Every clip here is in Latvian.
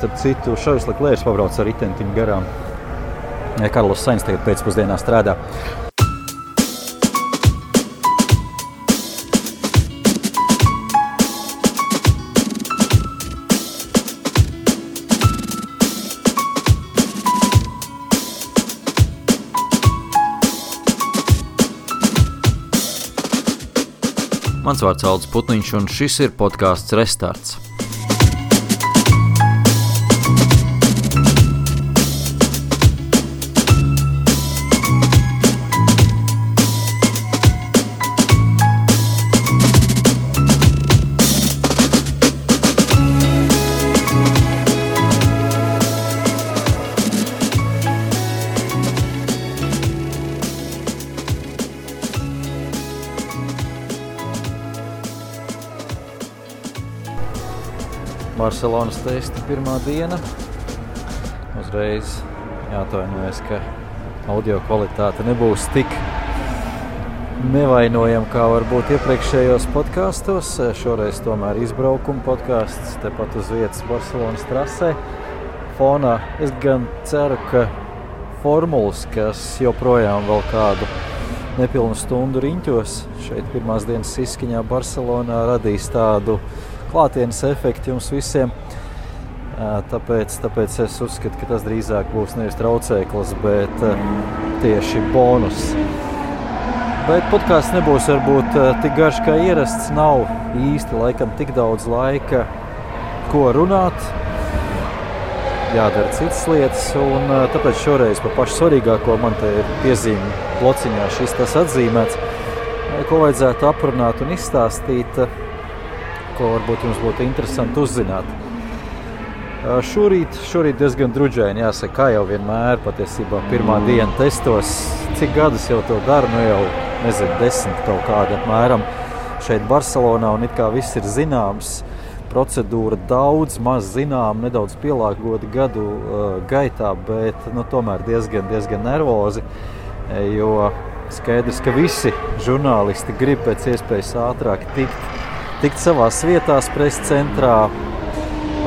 starp citu, Šarls Leklērs pabrauc ar ritentiņu garām. Karlos Sainz tagad pēcpusdienā strādā. Mans vārds Aldis Putniņš, un šis ir podcasts Restarts. Barcelonas testa pirmā diena. Uzreiz jāatvainojas, ka audio kvalitāte nebūs tik nevainojama, kā varbūt iepriekšējos podkastos. Šoreiz tomēr izbraukuma podkasts, tepat uz vietas Barcelonas trasē. Fonā es gan ceru, ka formulas, kas joprojām vēl kādu nepilnu stundu riņķos šeit pirmās dienas izskaņā Barcelonā radīs tādu klātienes efekti jums visiem. Tāpēc es uzskatu, ka tas drīzāk būs nevis traucēklis, bet tieši bonus. Bet podcasts nebūs varbūt tik garš kā ierasts, nav īsti laikam tik daudz laika, ko runāt. Jādara citas lietas, un tāpēc šoreiz par pašu svarīgāko man te ir piezīme blociņā šis tas atzīmēts, ko vajadzētu aprunāt un izstāstīt, ko varbūt jums būtu interesanti uzzināt. Šorīt diezgan druģaini, jāsaka, kā jau vienmēr, patiesībā pirmā diena testos. Cik gadus jau to daru, jau, 10 kaut kāda apmēram šeit Barcelonā, un it kā viss ir zināms. Procedūra daudz, maz zinām, nedaudz pielāgota gadu gaitā, bet tomēr diezgan nervozi, jo skaidrs, ka visi žurnālisti grib pēc iespējas ātrāk tikt savās vietās presa centrā,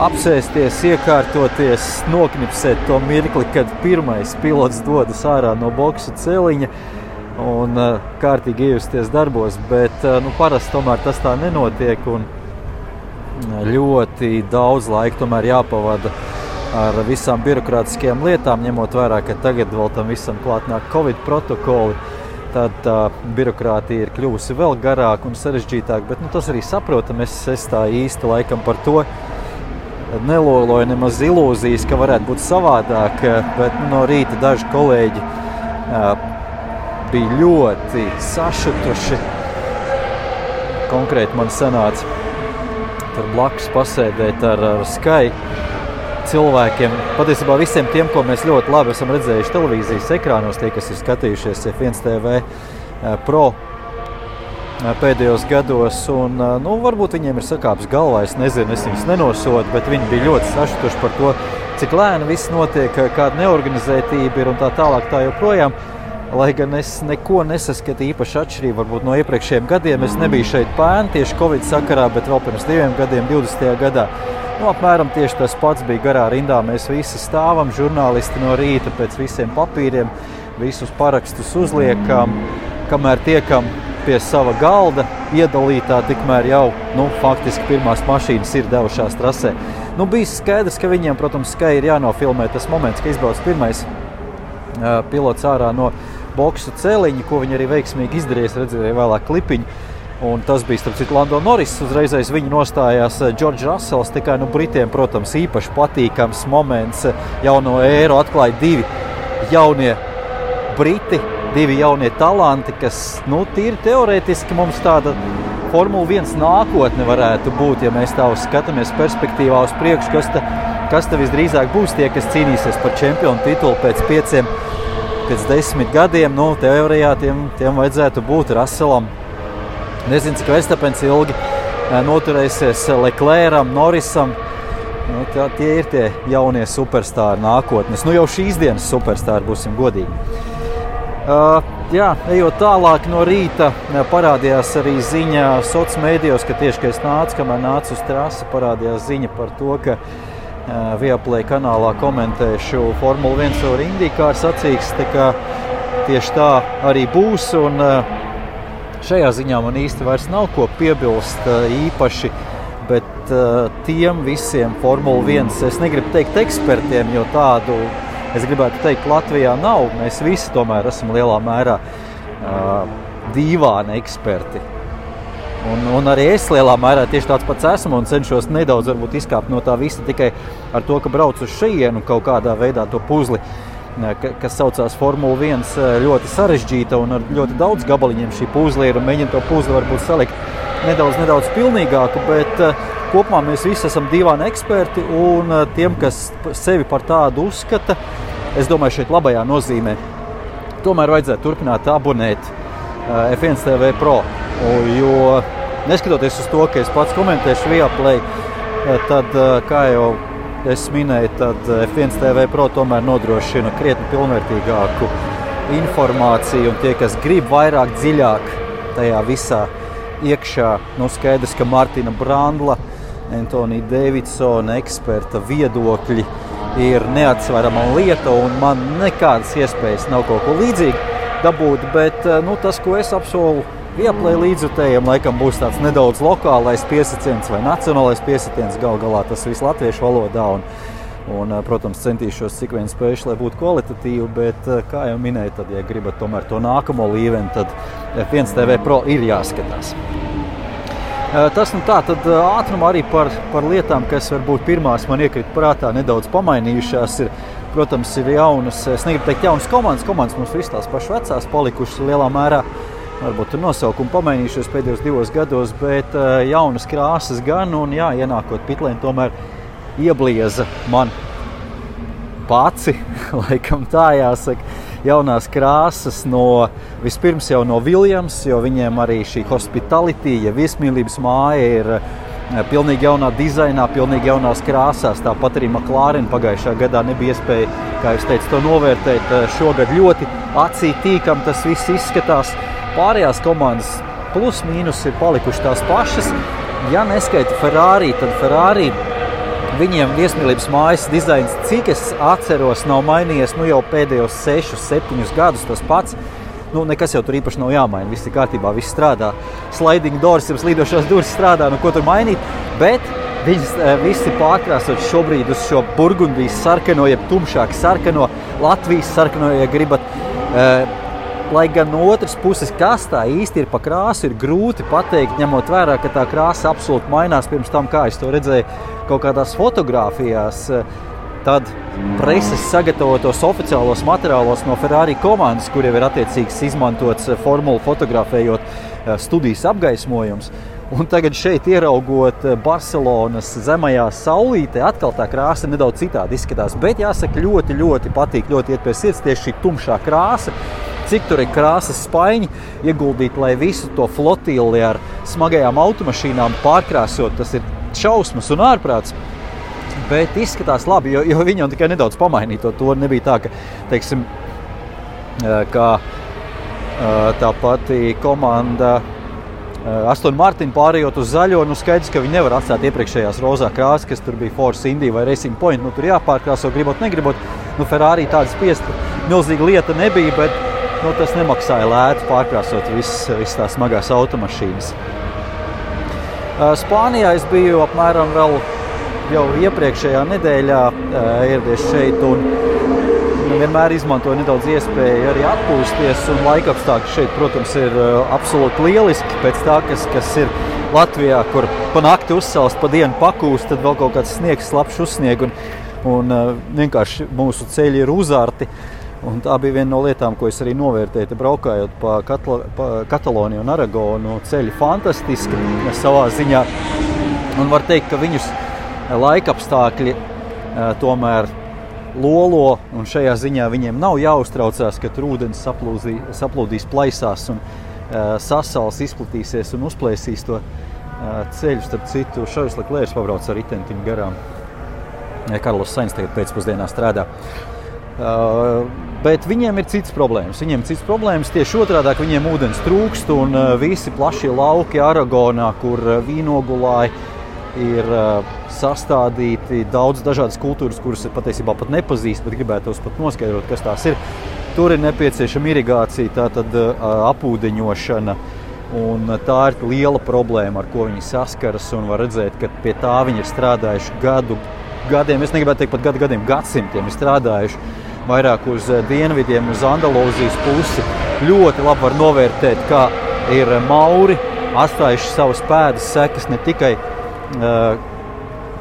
apsēsties, iekārtoties, noknipsēt to mirkli, kad pirmais pilots dodas ārā no boksu celiņa un kārtīgi iejusties darbos, bet parasti tomēr tas tā nenotiek un ļoti daudz laika tomēr jāpavada ar visām birokrātiskajām lietām, ņemot vērā, ka tagad vēl tam visam klāt nāk Covid protokoli. Tad tā birokrātija ir kļuvusi vēl garāk un sarežģītāk, bet tas arī saprotam, es tā īsti laikam par to neloloju nemaz ilūzijas, ka varētu būt savādāk, bet no rīta daži kolēģi bija ļoti sašutuši. Konkrēti man sanāca tur blakus pasēdēt ar Sky cilvēkiem, patiesībā visiem tiem, ko mēs ļoti labi esam redzējuši televīzijas ekrānos, tie, kas ir skatījušies F1 TV Pro pēdējos gados, un varbūt viņiem ir sakāps galvā, es nezinu, es viņus nenosodu, bet viņi bija ļoti sašutuši par to, cik lēni viss notiek, kāda neorganizētība ir un tā tālāk tā joprojām. Lai gan es neko nesaskatu īpaši atšķirību varbūt no iepriekšējiem gadiem, es nebiju šeit pēn tieši Covid sakarā, bet vēl pirms 2 gadiem, 20. gadā. Apmēram tieši tas pats bija garā rindā. Mēs visi stāvam, žurnālisti no rīta pēc visiem papīriem, visus parakstus uzliekam, kamēr tiekam pie sava galda iedalītā, tikmēr jau, faktiski pirmās mašīnas ir devušās trasē. Bija skaidrs, ka viņiem, protams, Sky ir jānofilmē tas moments, ka izbrauc pirmais pilots ārā no boksu celiņa, ko viņi arī veiksmīgi izdarīja, redzēja vēlāk klipiņu. Un tas bija, starp citu, Lando Norris, uzreiz aiz viņu nostājās George Russells, tikai Britiem, protams, īpaši patīkams moments, jauno ēru atklāja 2 jaunie Briti, 2 jaunie talanti, kas, tīri teorētiski mums tāda Formula 1 nākotne varētu būt, ja mēs tā skatāmies perspektīvā uz priekšu, kas te visdrīzāk būs tie, kas cīnīsies par čempionu titulu pēc 10 gadiem, teorijā tiem vajadzētu būt Russellam. Nezinu, cik Verstappens ilgi noturēsies Leclercam, Norrisam. Tie ir tie jaunie superstāri nākotnes. Jau šīs dienas superstāri, būsim godīgi. Ejot tālāk no rīta, parādījās arī ziņa sociālos mēdījos, ka tieši, kad es nācu, kamēr nācu uz trasi, parādījās ziņa par to, ka Viaplay kanālā komentēšu Formula 1 ar IndyCar sacīksts, tā kā tieši tā arī būs, un šajā ziņā man īsti vairs nav ko piebilst īpaši, bet tiem visiem Formula 1, es negribu teikt ekspertiem, jo tādu, es gribētu teikt, Latvijā nav, mēs visi tomēr esam lielā mērā dīvāni eksperti. Un arī es lielā mērā tieši tāds pats esmu un cenšos nedaudz varbūt izkāpt no tā visa tikai ar to, ka braucu uz šejienu kaut kādā veidā to puzli, kas saucās Formula 1, ļoti sarežģīta un ar ļoti daudz gabaliņiem šī puzli ir un mēģina to puzli varbūt salikt nedaudz pilnīgāku, bet kopumā mēs visi esam dīvāni eksperti un tiem, kas sevi par tādu uzskata, es domāju šeit labajā nozīmē, tomēr vajadzētu turpināt abonēt F1 TV Pro. Jo neskatoties uz to, ka es pats komentēšu Viaplay, tad, kā jau es minēju, tad F1 TV Pro tomēr nodrošina krietni pilnvērtīgāku informāciju, un tie, kas grib vairāk dziļāk tajā visā iekšā, skaidrs, ka Martina Brandla, Antonija Davidsona eksperta viedokļi ir neatsverama lieta, un man nekādas iespējas nav kaut ko līdzīgu dabūt, bet tas, ko es apsolu Viaplay līdzjutējiem, laikam būs tāds nedaudz lokālais piesiciens vai nacionālais piesiciens, galā tas viss latviešu valodā, un protams, centīšos cik vien spējuši, lai būtu kvalitatīvi, bet, kā jau minēju, tad, ja gribat tomēr to nākamo līmeni, tad F1 TV Pro ir jāskatās. Tas tā, tad ātrumā arī par lietām, kas varbūt pirmās man iekrita prātā nedaudz pamainījušās, protams, ir jaunas, es negribu teikt jaunas komandas mums viss tās pašas vecās palikušas lielā mērā, varbūt tur nosaukumi pamainījušies pēdējos 2 gados, bet jaunas krāsas gan, un jā, ienākot pitlēni tomēr ieblieza man paci, laikam tā jāsaka, jaunās krāsas vispirms jau no Williams, jo viņiem arī šī hospitality, ja viesmīlības māja ir pilnīgi jaunā dizainā, pilnīgi jaunās krāsās, tāpat arī McLaren pagājušā gadā nebija iespēja, kā jūs teicu, to novērtēt, šogad ļoti acī tīkam tas viss izskatās. Pārējās komandas plus mīnus ir palikuši tās pašas. Ja neskaita Ferrari, tad Ferrari viņiem viesmīlības mājas dizains, cik es atceros, nav mainījies jau pēdējos 6-7 gadus tas pats. Nekas jau tur īpaši nav jāmaina, viss ir kārtībā, viss strādā. Sliding doors, jums līdošās durvis strādā, ko tur mainīt, bet viņas visi pārkrāsot šobrīd uz šo Burgundijas sarkano, jeb tumšāk sarkano, Latvijas sarkano, ja gribat. Lai gan no otras puses, kas tā īsti ir pa krāsu, ir grūti pateikt, ņemot vērā, ka tā krāsa absolūti mainās pirms tam, kā es to redzēju kaut kādās fotogrāfijās, tad preses sagatavotos oficiālos materiālos no Ferrari komandas, kur jau ir attiecīgs izmantots formulu fotografējot studijas apgaismojums. Un tagad šeit ieraugot Barcelonas zemajā saulītē, atkal tā krāsa nedaudz citādi izskatās, bet jāsaka ļoti patīk, ļoti iet pie sirds tieši šī tumšā krāsa. Cik tur ir krāsas spaiņi ieguldīt, lai visu to flotili ar smagajām automašīnām pārkrāsot, tas ir šausmas un ārprāts. Bet izskatās labi, jo viņi jau tikai nedaudz pamainīja to. Nebija tā, ka, teiksim, kā tā pati komanda Aston Martin pārējot uz zaļo, skaidrs, ka viņi nevar atstāt iepriekšējās rozā krāsas, kas tur bija Force Indy vai Racing Point, tur jāpārkrāso, gribot, negribot. Ferrari tāda spiesta milzīga lieta nebija, bet tas nemaksāja lētu pārkrāsot visas tās smagās automašīnas. Spānijā es biju apmēram vēl jau iepriekšējā nedēļā ieradies šeit un vienmēr izmantoju nedaudz iespēju arī atpūsties, un laikapstākļi šeit, protams, ir absolūti lieliski pēc tā, kas ir Latvijā, kur pa nakti uzsalst, pa dienu pakūst, tad vēl kaut kāds sniegs, slapšs uzsnieg, un vienkārši mūsu ceļi ir uzārti. Un tā bija viena no lietām, ko es arī novērtēju, braukājot pa Kataloniju un Aragonu. Ceļi fantastiski savā ziņā. Un var teikt, ka viņus laikapstākļi tomēr lolo, un šajā ziņā viņiem nav jāuztraucās, ka tur ūdens saplūdīs plaisās un sasals izplatīsies un uzplēsīs to ceļu. Starp citu, Šarls Leklērs pabrauc ar ritentiņu garām. Karlos Sainz tagad pēcpusdienā strādā. Bet viņiem ir citas problēmas. Tieši otrādāk viņiem ūdens trūkst un visi plašie lauki Aragonā, kur vīnogulāji ir sastādīti daudz dažādas kultūras, kuras patiesībā pat nepazīst, bet gribētos pat noskaidrot, kas tās ir. Tur ir nepieciešama irigācija, tātad apūdeņošana, un tā ir liela problēma, ar ko viņi saskaras, un var redzēt, ka pie tā viņi ir strādājuši gadiem, es negribētu teikt pat gadiem, gadsimtiem ir strādājuši vairāk uz dienvidiem, uz Andalūzijas pusi. Ļoti labi var novērtēt, kā ir mauri atstājuši savas pēdas sekas ne tikai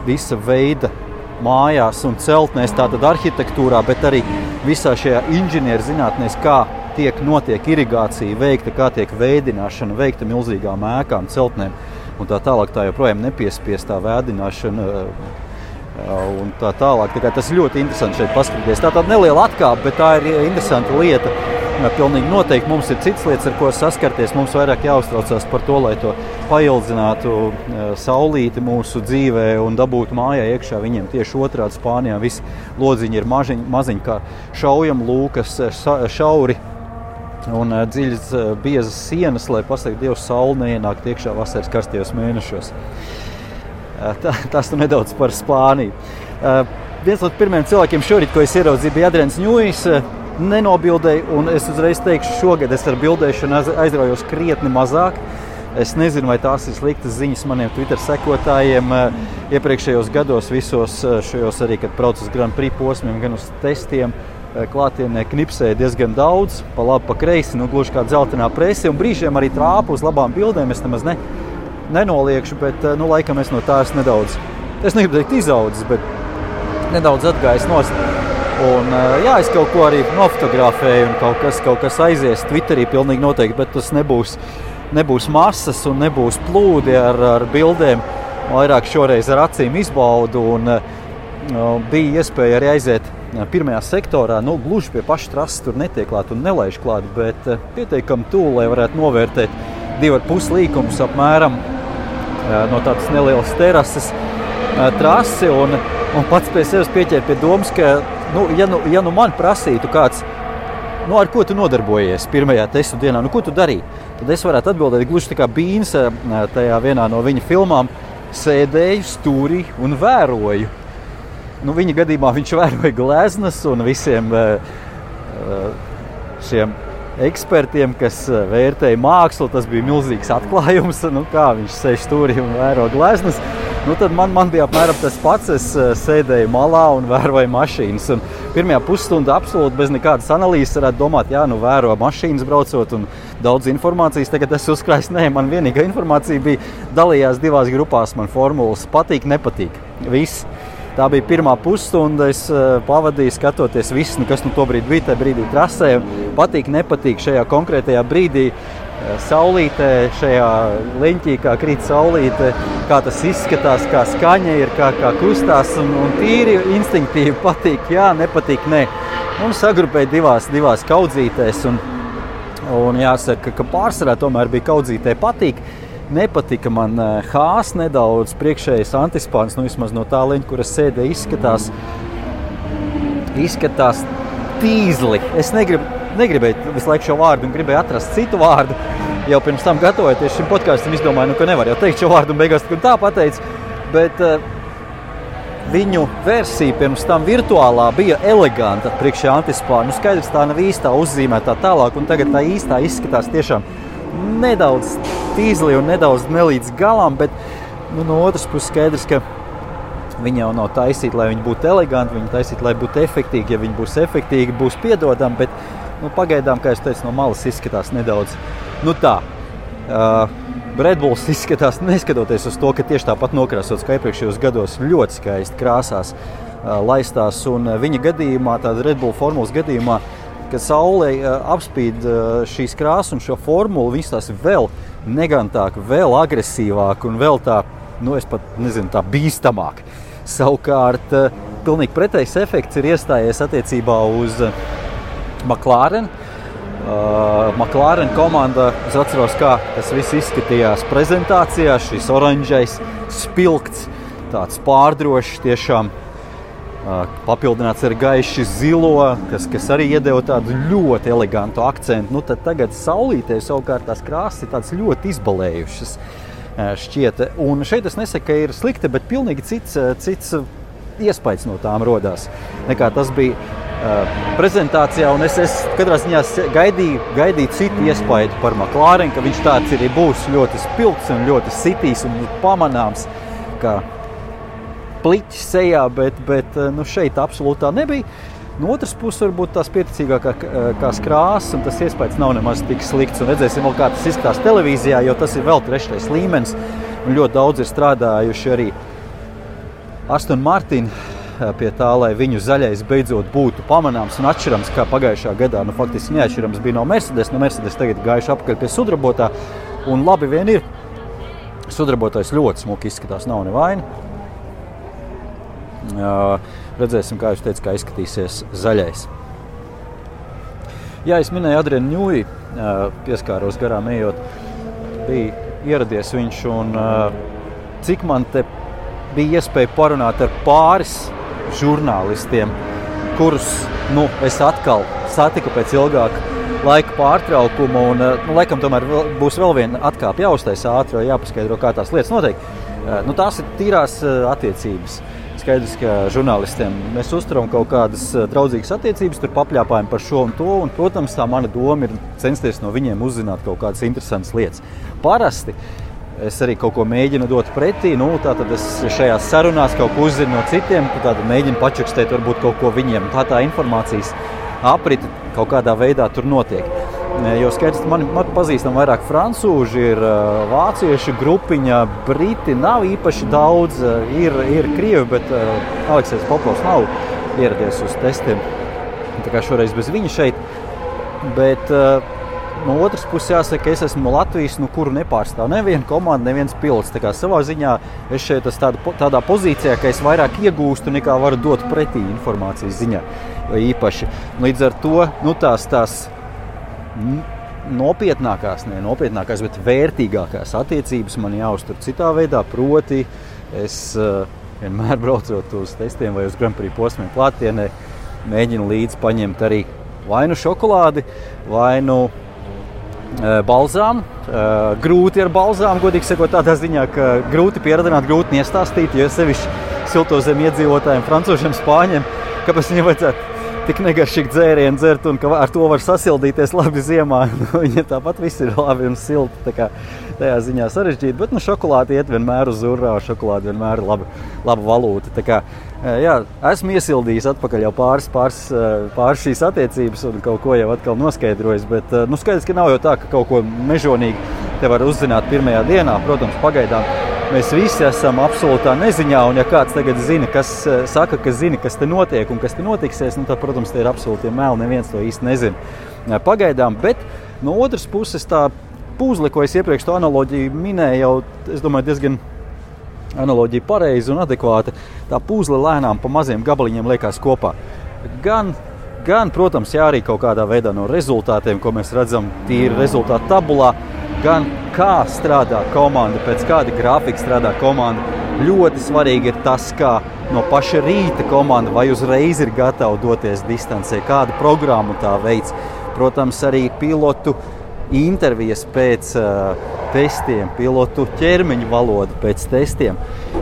visa veida mājās un celtnēs, tātad arhitektūrā, bet arī visā šajā inženierzinātnēs, kā notiek irigācija veikta, kā tiek veidināšana veikta milzīgām ēkām, celtnēm un tā tālāk, tā joprojām nepiespiestā vēdināšana un tā tālāk. Tā kā tas ir ļoti interesanti šeit paskatīties. Tā tāda neliela atkāpe, bet tā ir interesanta lieta. Pilnīgi noteikti mums ir citas lietas, ar ko saskarties. Mums vairāk jāuztraucās par to, lai to paildzinātu saulīti mūsu dzīvē un dabūtu mājā iekšā. Viņiem tieši otrādi Spānijā visi lodziņi ir maziņi kā šaujam lūkas, šauri un dziļas biezas sienas, lai pasaka Dievs sauli neienākt iekšā vasaras karstajos mēnešos. Tas tu nedaudz par Spāniju. Viens no pirmiem cilvēkiem šorīt, ko es ieraudzīju, bija Adrians Ņujs, nenobildēju, un es uzreiz teikšu, šogad es ar bildēšanu aizraujos krietni mazāk. Es nezinu, vai tās ir sliktas ziņas maniem Twitter sekotājiem. Iepriekšējos gados visos šajos arī, kad braucu uz Grand Prix posmiem, gan uz testiem, klātienē knipsēja diezgan daudz, pa labi, pa kreisi, gluži kā dzeltenā prese, un brīžiem arī trāpu uz labām bildēm. Es nemaz nenoliekšu, bet laikam es no tās nedaudz, es negribu teikt izaudzis, bet nedaudz atgājis nost. Un es kaut ko arī nofotografēju un kaut kas aizies Twitterī pilnīgi noteikti, bet tas nebūs masas un nebūs plūdi ar bildēm. Vairāk šoreiz ar acīm izbaudu un bija iespēja arī aiziet pirmajā sektorā, gluži pie paša trases tur netiek klāt un nelaiž klāt, bet pietiekami tūl, lai varētu novērtēt 2,5 līkumus apmēram no tādas nelielas terases trasi un pats pie sevis pieķēra pie domas, ka ja man prasītu kāds, ar ko tu nodarbojies pirmajā testu dienā, ko tu darīji, tad es varētu atbildēt gluži tā kā Bīns tajā vienā no viņa filmām, sēdēju stūrī un vēroju. Viņa gadījumā viņš vēroja gleznas un visiem šiem ekspertiem, kas vērtēja mākslu, tas bija milzīgs atklājums, kā viņš sēž stūrī un vēro gleznas. Tad man bija apmēram tas pats, es sēdēju malā un vēroju mašīnas. Un pirmajā pusstundā absolūti bez nekādas analīzes varētu domāt, vēro mašīnas braucot un daudz informācijas. Tagad es uzkrāju, man vienīgā informācija bija dalījās 2 grupās, man formulas patīk, nepatīk. Viss. Tā bija pirmā pusstunda, es pavadīju skatoties visu, kas tobrīd bija tajā brīdī trasē. Patīk, nepatīk šajā konkrētajā brīdī. Saulītē, šajā leņķī, kā krīt saulīte, kā tas izskatās, kā skaņa ir, kā kustās un tīri instinktīvi patīk, nepatīk, nē. Sagrupēja divās kaudzītēs un jāsaka, ka pārsvarā tomēr bija kaudzītē patīk. Nepatika man Hās nedaudz, priekšējais antispāns, vismaz no tā leņķa, kur es sēdēju, izskatās tīzli. Es negribēju visu laiku šo vārdu un gribēju atrast citu vārdu. Jau pirms tam gatavojoties šim podkastam, izdomāju, ka nevar jau teikt šo vārdu un beigās tā pateicu. Bet viņu versija pirms tam virtuālā bija eleganta priekšējā antispāna. Skaidrs, tā nav īstā uzzīmētā tālāk, un tagad tā īstā izskatās tiešām nedaudz tīzli un nedaudz nelīdz galam, bet no otras puses skaidrs, ka viņi jau nav taisīti, lai viņi būtu eleganti, viņi taisīti, lai būtu efektīgi. Ja viņi būs efektīgi, būs piedodami, bet pagaidām, kā es teicu, no malas izskatās nedaudz. Red Bulls izskatās, neskatoties uz to, ka tieši tāpat nokrāsots kā iepriekšējos gados, ļoti skaisti krāsās laistās. Un viņa gadījumā, tāda Red Bull formulas gadījumā, kad saulē apspīd šīs krāsas un šo formulu, viņas tās vēl negantāk, vēl agresīvāk un vēl tā, es pat nezinu, tā bīstamāk. Savukārt, pilnīgi pretējs efekts ir iestājies attiecībā uz McLaren. McLaren komanda, es atceros, kā tas viss izskatījās prezentācijā, šis oranžais spilgts, tāds pārdrošs tiešām, papildināts ar gaiši zilo, kas arī iedeva tādu ļoti elegantu akcentu. Tad tagad saulītē savukārt tās krāsas ir tādas ļoti izbalējušas. šķiet. Un šeit es nesaku, ka ir slikti, bet pilnīgi cits iespējas no tām rodās, nekā tas bija prezentācijā. Un es katrā ziņā gaidīju citu iespēju par McLaren, ka viņš tāds arī būs ļoti spilgts un ļoti sitīs un pamanāms, kā pliķis sejā, bet šeit absolūtā nebija. No otras puses, varbūt tās pieticīgākās krāsas, un tas iespējas nav nemaz tik slikts. Un redzēsim vēl, kā tas izskatās televīzijā, jo tas ir vēl 3. līmenis. Un ļoti daudz ir strādājuši arī Aston Martin pie tā, lai viņu zaļais beidzot būtu pamanāms un atšķirams, kā pagājušā gadā. Faktiski neatšķirams bija no Mercedes. No Mercedes tagad gājuši apakaļ pie sudrabotā. Un labi vien ir. Sudrabotais ļoti smuki izskatās, nav nevaina. Redzēsim, kā jūs teicat, kā izskatīsies zaļais. Jā, es minēju Adrianu Ņūji, pieskāros garām ejot. Bija ieradies viņš un cik man te bija iespēja parunāt ar pāris žurnālistiem, kurus es atkal satiku pēc ilgāka laika pārtraukuma. Un, laikam tomēr būs vēl viena atkāpe jāuztais ātri, jāpaskaidro, kā tās lietas notiek. Tās ir tīrās attiecības. Skaidrs, ka žurnālistiem mēs uzturam kaut kādas draudzīgas attiecības, tur papļāpājam par šo un to, un, protams, tā mana doma ir censties no viņiem uzzināt kaut kādas interesantas lietas. Parasti es arī kaut ko mēģinu dot pretī, tātad es šajās sarunās kaut ko uzzinu no citiem, tātad mēģinu pačukstēt varbūt kaut ko viņiem. Tā informācijas aprita kaut kādā veidā tur notiek. Jo skaidrs, man pazīstam vairāk francūži, ir vācieši grupiņa, briti nav īpaši daudz, ir krievi, bet Aleksejs Popovs nav ieradies uz testiem. Tā kā šoreiz bez viņa šeit. Bet no otras puses jāsaka, es esmu no Latvijas, kuru nepārstāv neviena komanda, neviens pilots. Tā kā savā ziņā es šeit esmu tādā pozīcijā, ka es vairāk iegūstu nekā varu dot pretī informācijas ziņā. Īpaši. Līdz ar to tās nopietnākās, bet vērtīgākās attiecības man jāuztur citā veidā, proti es vienmēr braucot uz testiem vai uz Grand Prix posmiem klātienē, mēģinu līdzi paņemt arī vai šokolādi, vai balzām. Grūti ar balzām, godīgi sakot, tādā ziņā, ka grūti pieradināt, grūti iestāstīt, jo sevišķi siltozem iedzīvotājiem, francūžiem, spāņiem, kāpēc viņiem vajadzētu tik negaršīgi dzērienu dzert un ka ar to var sasildīties labi ziemā. Viņa tāpat viss ir labi un silti, tā kā tajā ziņā sarežģīti, bet šokolādi iet vienmēr uz urā, šokolādi vienmēr ir laba valūta. Tā kā, jā, esmu iesildījis atpakaļ jau pāris šīs attiecības un kaut ko jau atkal noskaidrojis, bet skaidrs, ka nav jau tā, ka kaut ko mežonīgi te var uzzināt pirmajā dienā. Protams, pagaidām mēs visi esam absolūtā neziņā, un ja kāds tagad zina, kas zina, kas te notiek un kas te notiksies, tad, protams, te ir absolūti meli, neviens to īsti nezina pagaidām. Bet no otras puses tā puzle, ko es iepriekš to analoģiju minēju, jau, es domāju, diezgan analoģija pareiza un adekvāta. Tā puzle lēnām pa maziem gabaliņiem liekas kopā. Gan, protams, arī kaut kādā veidā no rezultātiem, ko mēs redzam tīri rezultātu tabulā, gan kā strādā komanda, pēc kāda grafika strādā komanda. Ļoti svarīgi ir tas, kā no paša rīta komanda vai uzreiz ir gatava doties distancē, kādu programmu tā veids. Protams, arī pilotu intervijas pēc testiem, pilotu ķermeņa valoda pēc testiem.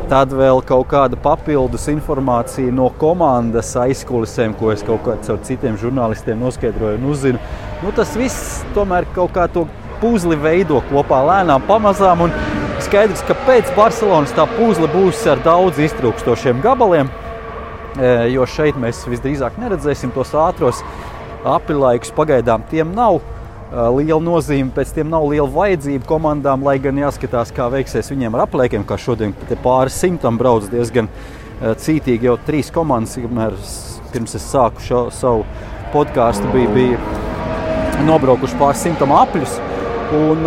Tad vēl kaut kāda papildus informācija no komandas aizkulisēm, ko es kaut kā caur citiem žurnālistiem noskaidroju un uzzinu. Tas viss tomēr kaut kā to puzli veido kopā lēnām pamazām, un skaidrs, ka pēc Barcelonas tā puzle būs ar daudz iztrūkstošiem gabaliem, jo šeit mēs visdrīzāk neredzēsim tos ātros aprilaikus. Pagaidām tiem nav liela nozīme, pēc tiem nav liela vajadzība komandām, lai gan jāskatās, kā veiksies viņiem ar aplēkiem, kā šodien pāris simtam brauc diezgan cītīgi jau 3 komandas, pirms es sāku savu podcastu, bija nobraukuši pāris simtam apļus. Un,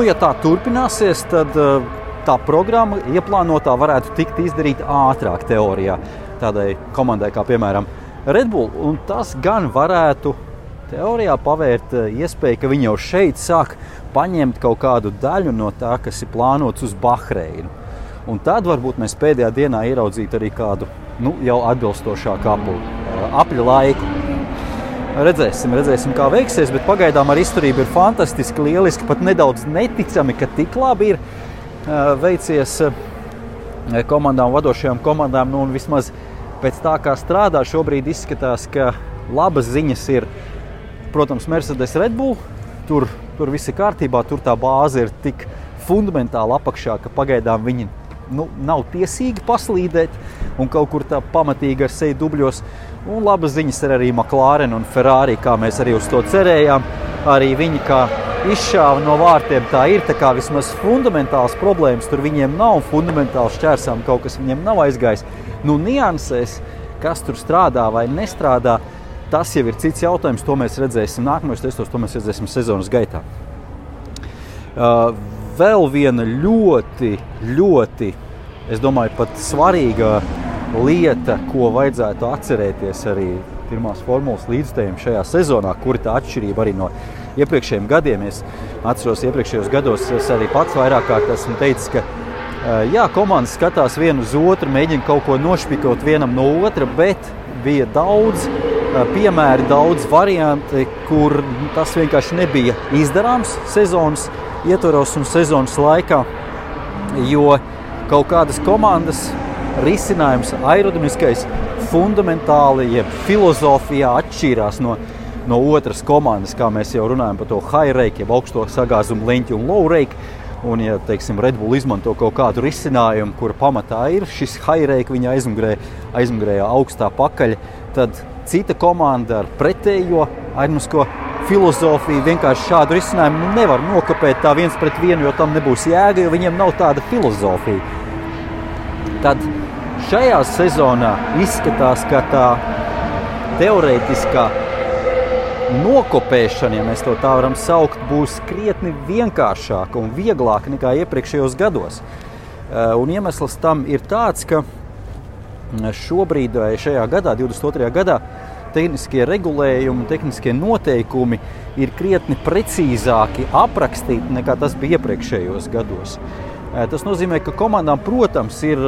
ja tā turpināsies, tad tā programma ieplānotā varētu tikt izdarīta ātrāk teorijā tādai komandai kā, piemēram, Red Bull. Un tas gan varētu teorijā pavērt iespēju, ka viņi jau šeit sāk paņemt kaut kādu daļu no tā, kas ir plānots uz Bahreinu. Un tad varbūt mēs pēdējā dienā ieraudzītu arī kādu jau atbilstošāku apļu laiku. Redzēsim, kā veiksies, bet pagaidām ar izturību ir fantastiski, lieliski, pat nedaudz neticami, ka tik labi ir. veicies komandām, vadošajām komandām, un vismaz pēc tā, kā strādā, šobrīd izskatās, ka labas ziņas ir, protams, Mercedes Red Bull, tur viss ir kārtībā, tur tā bāze ir tik fundamentāli apakšā, ka pagaidām viņi nav tiesīgi paslīdēt un kaut kur tā pamatīgi ar seju dubļos. Un labas ziņas ir arī McLaren un Ferrari, kā mēs arī uz to cerējām. Arī viņi kā izšāva no vārtiem, tā ir, tā kā vismaz fundamentāls problēmas tur viņiem nav, fundamentāli šķērsām kaut kas viņiem nav aizgājis. Niansēs, kas tur strādā vai nestrādā, tas jau ir cits jautājums, to mēs redzēsim nākamajos testos, to mēs redzēsim sezonas gaitā. Vēl viena ļoti, es domāju, pat svarīga lieta, ko vajadzētu atcerēties arī pirmās formulas līdzstājiem šajā sezonā, kuri tā atšķirība arī no iepriekšējiem gadiem. Es atceros iepriekšējos gados, es arī pats vairāk kārt esmu teicis, ka komandas skatās vienu uz otru, mēģina kaut ko nošpikot vienam no otra, bet bija daudz piemēri, daudz varianti, kur tas vienkārši nebija izdarāms sezonas ietvaros un sezonas laikā, jo kaut kādas komandas risinājums aerodinamiskais fundamentāli, jeb filozofijā atšķīrās no otras komandas, kā mēs jau runājam par to high rake, jeb augsto sagāzumu leņķi un low rake. Un, ja, teiksim, Red Bull izmanto kaut kādu risinājumu, kura pamatā ir šis high rake, viņa aizmugurējā augstā pakaļa, tad cita komanda ar pretējo aerodinamisko filozofiju vienkārši šādu risinājumu nevar nokopēt tā viens pret vienu, jo tam nebūs jēga, jo viņiem nav tāda filozofija. Tad šajā sezonā izskatās, ka tā teorētiskā nokopēšana, ja mēs to tā varam saukt, būs krietni vienkāršāka un vieglāka nekā iepriekšējos gados. Un iemesls tam ir tāds, ka šobrīd vai šajā gadā, 22. gadā, tehniskie regulējumi, tehniskie noteikumi ir krietni precīzāki aprakstīti nekā tas bija iepriekšējos gados. Tas nozīmē, ka komandām, protams, ir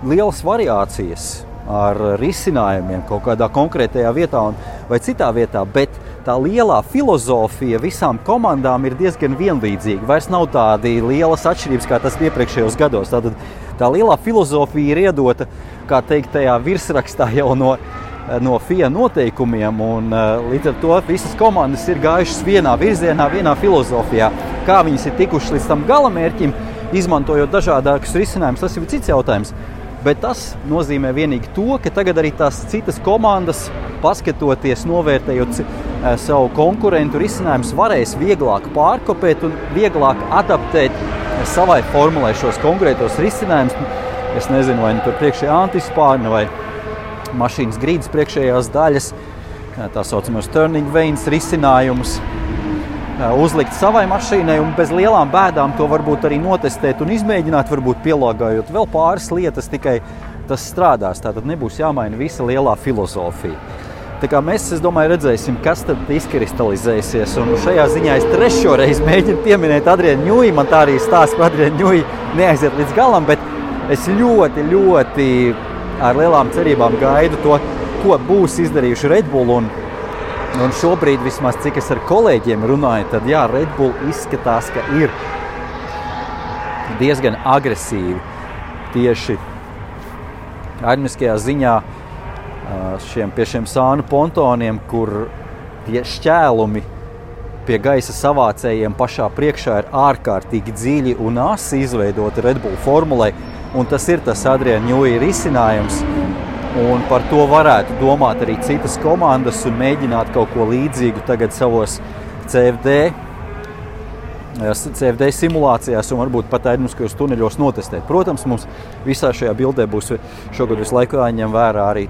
lielas variācijas ar risinājumiem kaut kādā konkrētajā vietā vai citā vietā, bet tā lielā filozofija visām komandām ir diezgan vienlīdzīga. Vairs nav tādi lielas atšķirības, kā tas iepriekšējos gados. Tātad tā lielā filozofija ir iedota, kā teikt, tajā virsrakstā jau no FIA noteikumiem, un līdz ar to visas komandas ir gājušas vienā virzienā, vienā filozofijā. Kā viņas ir tikušas līdz tam galamērķim, izmantojot dažādākus risinājumus, tas ir cits jautājums. Bet tas nozīmē vienīgi to, ka tagad arī tās citas komandas, paskatoties, novērtējot savu konkurentu risinājumus, varēs vieglāk pārkopēt un vieglāk adaptēt savai formulai šos konkrētos risinājumus. Es nezinu, vai tur priekšējā antispārna vai mašīnas grīdas priekšējās daļas, tā saucamās turning vanes risinājumus, uzlikt savai mašīnai un bez lielām bēdām to varbūt arī notestēt un izmēģināt, varbūt pielāgājot vēl pāris lietas, tikai tas strādās. Tātad nebūs jāmaina visa lielā filozofija. Tā kā mēs, es domāju, redzēsim, kas tad izkristalizēsies. Un šajā ziņā es trešo reizi mēģinu pieminēt Adrianu Ņuji. Man tā arī stāsts par Adrianu Ņuji neaiziet līdz galam, bet es ļoti ar lielām cerībām gaidu to, ko būs izdarījuši Red Bull. Un šobrīd, vismaz cik es ar kolēģiem runāju, tad jā, Red Bull izskatās, ka ir diezgan agresīvi tieši aerodinamiskajā ziņā pie šiem sānu pontoniem, kur tie šķēlumi pie gaisa savācējiem pašā priekšā ir ārkārtīgi dziļi un asi izveidoti Red Bull formulai, un tas ir tas Adriana Ņuji risinājums. Un par to varētu domāt arī citas komandas un mēģināt kaut ko līdzīgu tagad savos CFD simulācijās un varbūt pat aerodinamiskajos tuneļos notestēt. Protams, mums visā šajā bildē būs šogad visu laiku jāņem vērā arī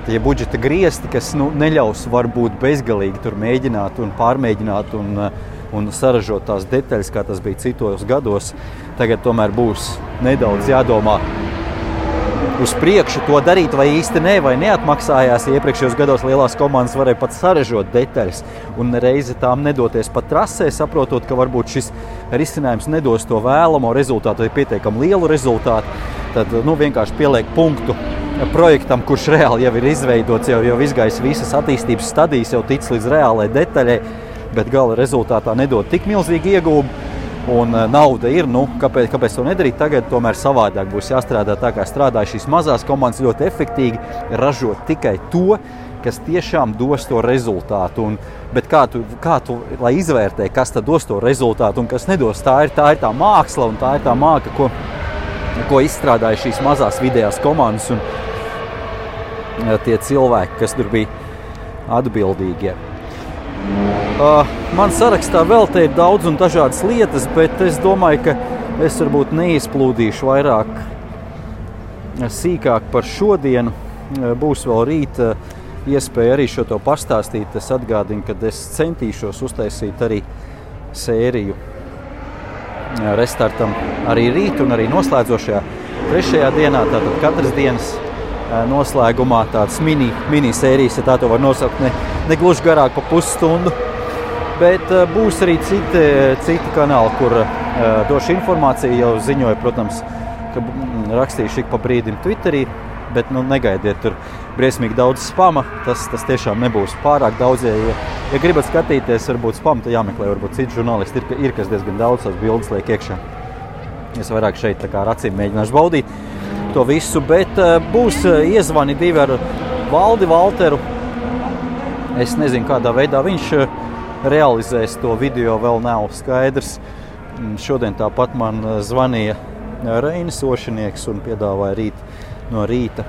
tie budžeta griesti, kas neļaus varbūt bezgalīgi tur mēģināt un pārmēģināt un saražot tās detaļas, kā tas bija citos gados. Tagad tomēr būs nedaudz jādomā uz priekšu to darīt, vai īsti vai neatmaksājās. Iepriekšējos gados lielās komandas varēja pat saražot detaļas un reizi tām nedoties pat trasē, saprotot, ka varbūt šis risinājums nedos to vēlamo rezultātu vai pietiekami lielu rezultātu. Tad vienkārši pieliek punktu projektam, kurš reāli jau ir izveidots, jau izgājis visas attīstības stadijas, jau tic līdz reālai detaļai, bet gala rezultātā nedod tik milzīgi iegūmu. un nauda ir, kāpēc to nedarīt tagad, tomēr savādāk būs jāstrādā tā, kā strādā šīs mazās komandas ļoti efektīgi, ražot tikai to, kas tiešām dos to rezultātu. Bet kā tu, lai izvērtē, kas tad dos to rezultātu un kas nedos, tā ir tā māksla un tā ir tā māka, ko izstrādāja šīs mazās vidējās komandas un tie cilvēki, kas tur bija atbildīgie. Man sarakstā vēl te ir daudz un dažādas lietas, bet es domāju, ka es varbūt neizplūdīšu vairāk sīkāk par šodienu. Būs vēl rīt iespēja arī šo to pastāstīt. Es atgādinu, ka es centīšos uztaisīt arī sēriju restartam arī rīt un arī noslēdzošajā 3. dienā. Tātad katras dienas noslēgumā tāds mini sērijas, ja tā to var nosaukt, ne gluži garāk pa pusstundu. Bet būs arī citi kanāli, kur došu informāciju. Jau ziņoju, protams, ka rakstīšu ik pa brīdim Twitterī, bet negaidiet tur briesmīgi daudz spama. Tas tiešām nebūs pārāk daudz. Ja gribat skatīties, varbūt spamu, tad jāmeklē, varbūt citi žurnālisti ir kas diezgan daudz tās bildes liek iekšā. Es vairāk šeit tā kā ar acīm mēģināšu baudīt to visu, bet būs iezvani 2 ar Valdi Valteru. Es nezinu, kādā veidā viņš realizēs to video, vēl nav skaidrs. Šodien tāpat man zvanīja Reinis Ošinieks un piedāvāja no rīta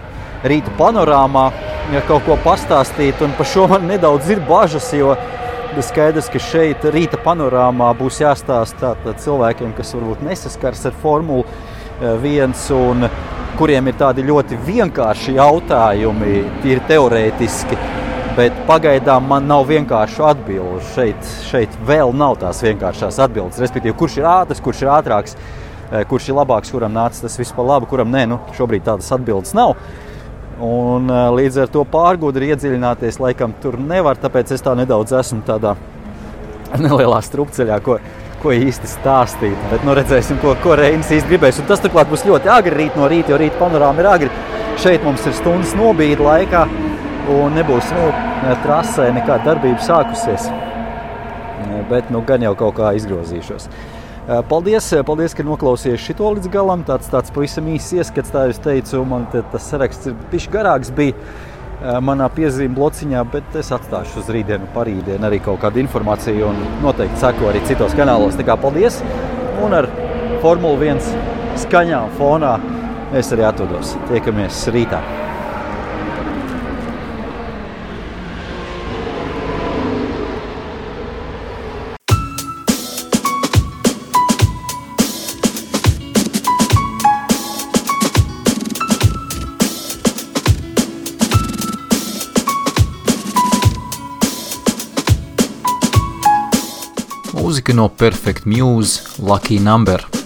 panorāmā kaut ko pastāstīt, un par šo man nedaudz ir bažas, jo skaidrs, ka šeit rīta panorāmā būs jāstāsta cilvēkiem, kas varbūt nesaskars ar Formulu 1 un kuriem ir tādi ļoti vienkārši jautājumi, tīri teorētiski, bet pagaidām man nav vienkāršu atbilžu. Šeit vēl nav tās vienkāršās atbildes, respektīvi, kurš ir ātrs, kurš ir ātrāks, kurš ir labāks, kuram nāca tas viss pa labu, kuram nē, šobrīd tādas atbildes nav. Un līdz ar to pārgudri iedziļināties laikam tur nevar, tāpēc es tā nedaudz esmu tādā nelielā strupceļā, ko īsti stāstīt. Bet redzēsim, ko Reinis īsti gribēs. Un tas turklāt būs ļoti agri rīt no rīta, jo rīta panorāma ir agri. Šeit mums ir stundas nobīde laikā un nebūs trasē nekāda darbība sākusies. Bet gan jau kaut kā izgrozīšos. Paldies, ka noklausījās šito līdz galam. Tāds pavisam īsts ieskats, tā es teicu, man tas saraksts ir bišķi garāks bija manā piezīme blociņā, bet es atstāšu uz rītdienu, parītdienu arī kaut kādu informāciju un noteikti seko arī citos kanālos. Tā kā paldies, un ar Formula 1 skaņām fonā es arī atvados. Tiekamies rītā. Mūzika no Perfect Muse, Lucky Number.